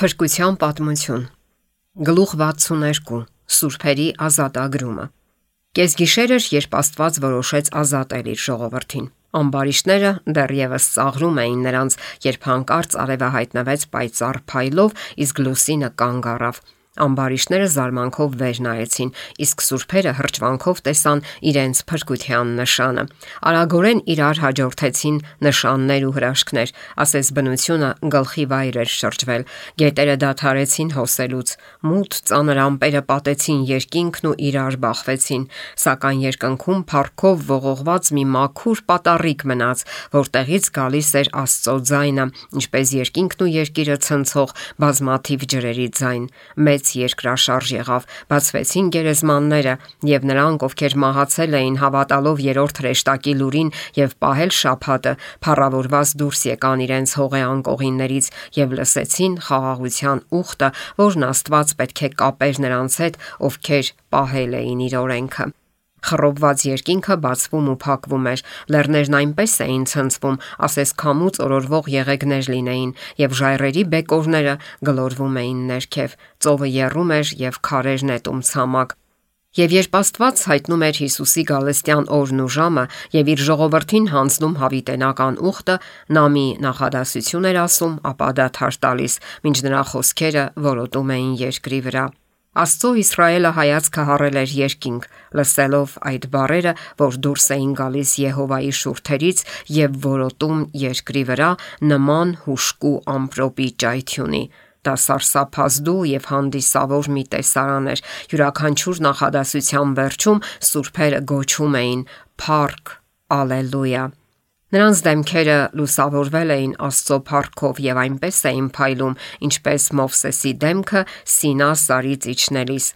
Փրկության պատմություն։ Գլուխ 62. Սուրբերի ազատագրումը։ Կեսգիշեր էր, երբ Աստված որոշեց ազատել իր ժողովրդին։ Ամբարիշտները դեռևս ծաղրում էին նրանց, երբ հանկարծ արևը հայտնվեց պայծառ փայլով, իսկ լուսինը կանգ առավ։ Ամբարիշտները զարմանքով վեր նայեցին, իսկ սուրբերը հրճվանքով տեսան իրենց փրկության նշանը։ Արագորեն իրար հաջորդեցին նշաններ ու հրաշքներ, ասես բնությունը գլխի վայր էր շրջվել։ Գետերը դադարեցին հոսելուց, մութ ծանր ամպերը պատեցին երկինքն ու իրար բախվեցին, սակայն երկնքում փառքով ողողված մի մաքուր պատառիկ մնաց, որտեղից գալիս էր Աստծո ձայնը, ինչպես երկինքն ու երկիրը ցնցող բազմաթիվ ջրերի ձայն։ Մեծ երկրաշարժ եղավ, բացվեցին գերեզմանները, եւ նրանք, ովքեր մահացել էին հավատալով երրորդ հրեշտակի լուրին եւ պահել շաբաթը, փառավորված դուրս եկան իրենց հողե անկողիններից եւ լսեցին խաղաղության ուխտը, որն Աստված պետք է կապեր նրանց հետ, ովքեր պահել էին իր օրենքը։ Խռովված երկինքը բացվում ու փակվում էր, լեռներն այնպես էին ցնցվում, ասես քամուց օրորվող եղեգներ լինեին, եւ ժայռերի բեկորները գլորվում էին ներքև, ծովը եռում էր եւ քարեր նետում ցամաք։ Եվ երբ Աստված հայտնում էր Հիսուսի գալստյան օրն ու ժամը եւ իր ժողովրդին հանձնում հավիտենական ուխտը, նա մի նախադասություն էր ասում, ապա դադար տալիս, մինչ նրա խոսքերը որոտում էին երկրի վրա։ Աստծո Իսրայելը հայացքը հառել էր երկինք, լսելով այդ բառերը, որ դուրս էին գալիս Եհովայի շուրթերից եւ որոտում երկրի վրա նման հուժկու ամպրոպի ճայթյունի։ Դա սարսափազդու եւ հանդիսավոր մի տեսարան էր։ Յուրաքանչյուր նախադասության վերջում սուրբերը գոչում էին. «Փառք, Ալելույա»։ Նրանց դեմքերը լուսավորվել էին Աստծո փառքով եւ այնպես էին փայլում, ինչպես Մովսեսի դեմքը Սինա սարից իջնելիս։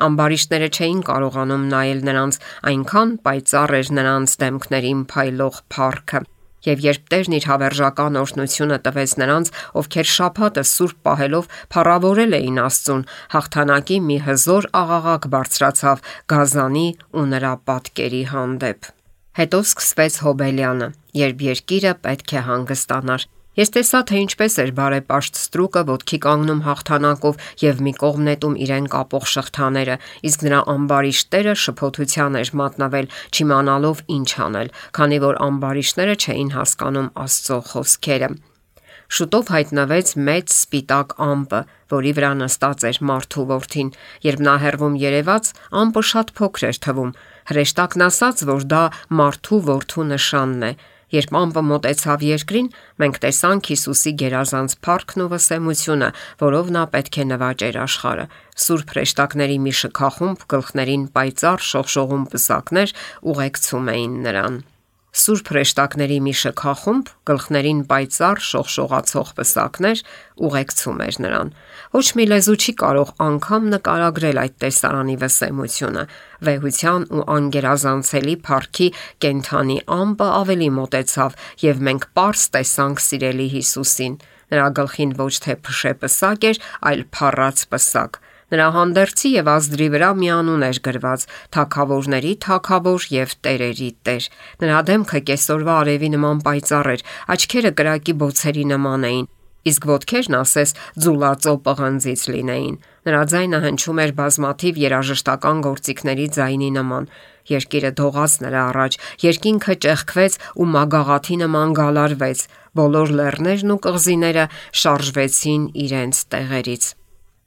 Ամբարիշտները չէին կարողանում նայել նրանց, այնքան պայծառ էր նրանց դեմքներին փայլող փառքը։ Եվ երբ Տերն իր հավերժական օրհնությունը տվեց նրանց, ովքեր շաբաթը սուրբ պահելով փառավորել էին Աստծուն, հաղթանակի մի հզոր աղաղակ բարձրացավ Գազանի ու նրա պատկերի հանդեպ։ Հետո սկսվեց Հոբելյանը, երբ երկիրը պետք է հանգստանար։ Ես տեսա, թե ինչպես էր բարեպաշտ ստրուկը ոտքի կանգնում հաղթանակով եւ մի կողմ նետում իրեն կապող շղթաները, իսկ նրա ամբարիշտները շփոթության էր մատնվել, չիմանալով ինչ անել, քանի որ ամբարիշտները չէին հասկանում Աստծո խոսքերը։ Շուտով հայտնվեց մեծ սպիտակ ամպը, որի վրա նստած էր մարդու որդին։ Երբ նա հեռվում երևաց, ամպը շատ փոքր էր թվում։ Հրեշտակն ասաց, որ դա մարդու որդու նշանն է։ Երբ ամպը մոտեցավ երկրին, մենք տեսանք Հիսուսի գերազանց փառքն ու վսեմությունը, որով նա պետք է նվաճեր աշխարհը։ Սուրբ հրեշտակների մի շքախումբ գլխներին պայծառ շողշողուն պսակներ ուղեկցում էին նրան։ Սուրբ հրեշտակների մի շքախումբ գլխներին պայծառ շողշողացող պսակներ ուղեկցում էր նրան։ Ոչ մի լեզու չի կարող անգամ նկարագրել այդ տեսարանի վսեմությունը։ Վեհության ու անգերազանցելի փառքի կենթանի ամպը ավելի մոտեցավ, եւ մենք պարզ տեսանք սիրելի Հիսուսին։ Նրա գլխին ոչ թե փշե պսակ էր, այլ փառած պսակ։ Նրա հանդերձի եւ ազդրի վրա մի անուն էր գրված՝ Թագավորների Թագավոր եւ Տերերի Տեր։ Նրա դեմքը կեսօրվա արևի նման պայծառ էր, աչքերը կրակի բոցերի նման էին, իսկ ոտքերն ասես ձուլածո պղնձից լինեին։ Նրա ձայնը հնչում էր բազմաթիվ երաժշտական գործիքների ձայնի նման։ Երկիրը դողաց նրա առաջ, երկինքը ճեղքվեց ու մագաղաթի նման գալարվեց, բոլոր լեռներն ու կղզիները շարժվեցին իրենց տեղերից։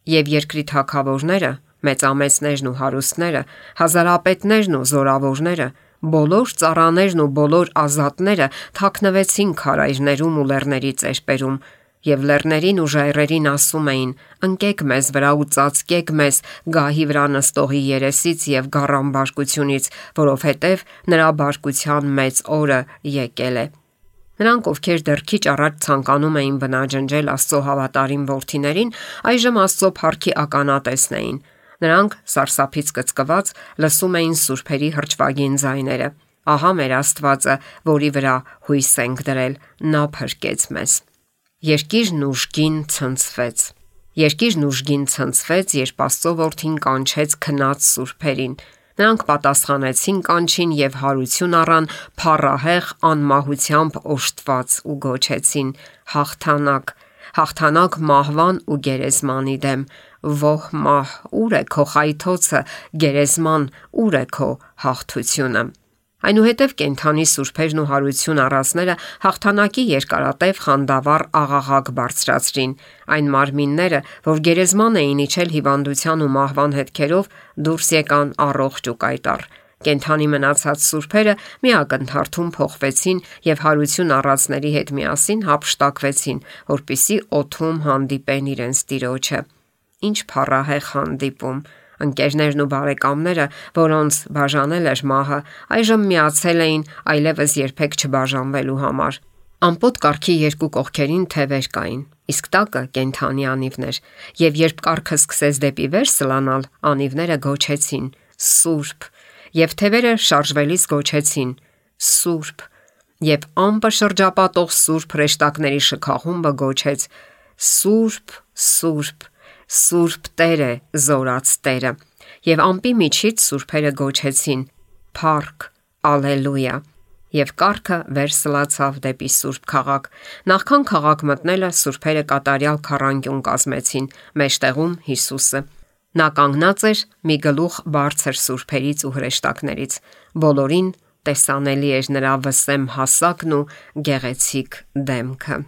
Եվ երկրի թագավորները, մեծամեծներն ու հարուստները, հազարապետներն ու զորավորները, բոլոր ծառաներն ու բոլոր ազատները թաքնվեցին քարայրներում ու լեռների ծերպերում, եւ լեռներին ու ժայռերին ասում էին. «Ընկեք մեզ վրա ու ծածկեք մեզ գահի վրա նստողի երեսից եւ գառան բարկությունից, որովհետեւ նրա բարկության մեծ օրը եկել է»։ Նրանք, ովքեր դեռ քիչ առաջ ցանկանում էին բնաջնջել Աստծո հավատարիմ որդիներին, այժմ Աստծո փառքի ականատեսն էին։ Նրանք, սարսափից կծկված, լսում էին սուրբերի հրճվագին ձայները։ Ահա մեր Աստվածը, որի վրա հույս ենք դրել, նա փրկեց մեզ։ Երկիրն ուժգին ցնցվեց։ Երկիրն ուժգին ցնցվեց, երբ Աստծո որդին կանչեց քնած սուրբերին։ Նրանք պատասխանեցին կանչին եւ հարություն առան փառահեղ անմահությամբ օժտված ու գոչեցին. հաղթանակ, հաղթանակ մահվան ու գերեզմանի դեմ։ Ո՛հ մահ, ուր է քո խայթոցը, գերեզման, ուր է քո հաղթությունը։ Այնուհետև կենդանի սուրբերն ու հարություն առածները հաղթանակի երկարատև խանդավառ աղաղակ բարձրացրին։ Այն մարմինները, որ գերեզման էին իջել հիվանդության ու մահվան հետքերով, դուրս եկան առողջ ու կայտառ։ Կենդանի մնացած սուրբերը մի ակնթարթում փոխվեցին եւ հարություն առածների հետ միասին հափշտակվեցին, որպիսի օդում հանդիպեն իրենց տիրոջը։ Ինչ փառահեղ հանդիպում։ Ընկերներն ու բարեկամները, որոնց բաժանել էր մահը, այժմ միացել էին այլևս երբեք չբաժանվելու համար։ Ամպոտ կառքի երկու կողքերին թևեր կային, իսկ տակը կենդանի անիվներ, եւ երբ կառքը սկսեց դեպի վեր սլանալ, անիվները գոչեցին. «Սուրբ», եւ թևերը շարժվելիս գոչեցին. «Սուրբ», եւ ամպը շրջապատող սուրբ հրեշտակների շքախումբը գոչեց. «Սուրբ, Սուրբ, Սուրբ Տեր է, Զորաց Տերը», եւ ամպի միջից սուրբերը գոչեցին. «Փառք, Ալելույա», եւ կառքը վեր սլացավ դեպի Սուրբ քաղաք։ Նախքան քաղաք մտնելը սուրբերը կատարյալ քառանկյուն կազմեցին, մեջտեղում Հիսուսը։ Նա կանգնած էր մի գլուխ բարձր սուրբերից ու հրեշտակներից։ Բոլորին տեսանելի էր նրա վսեմ հասակն ու գեղեցիկ դեմքը։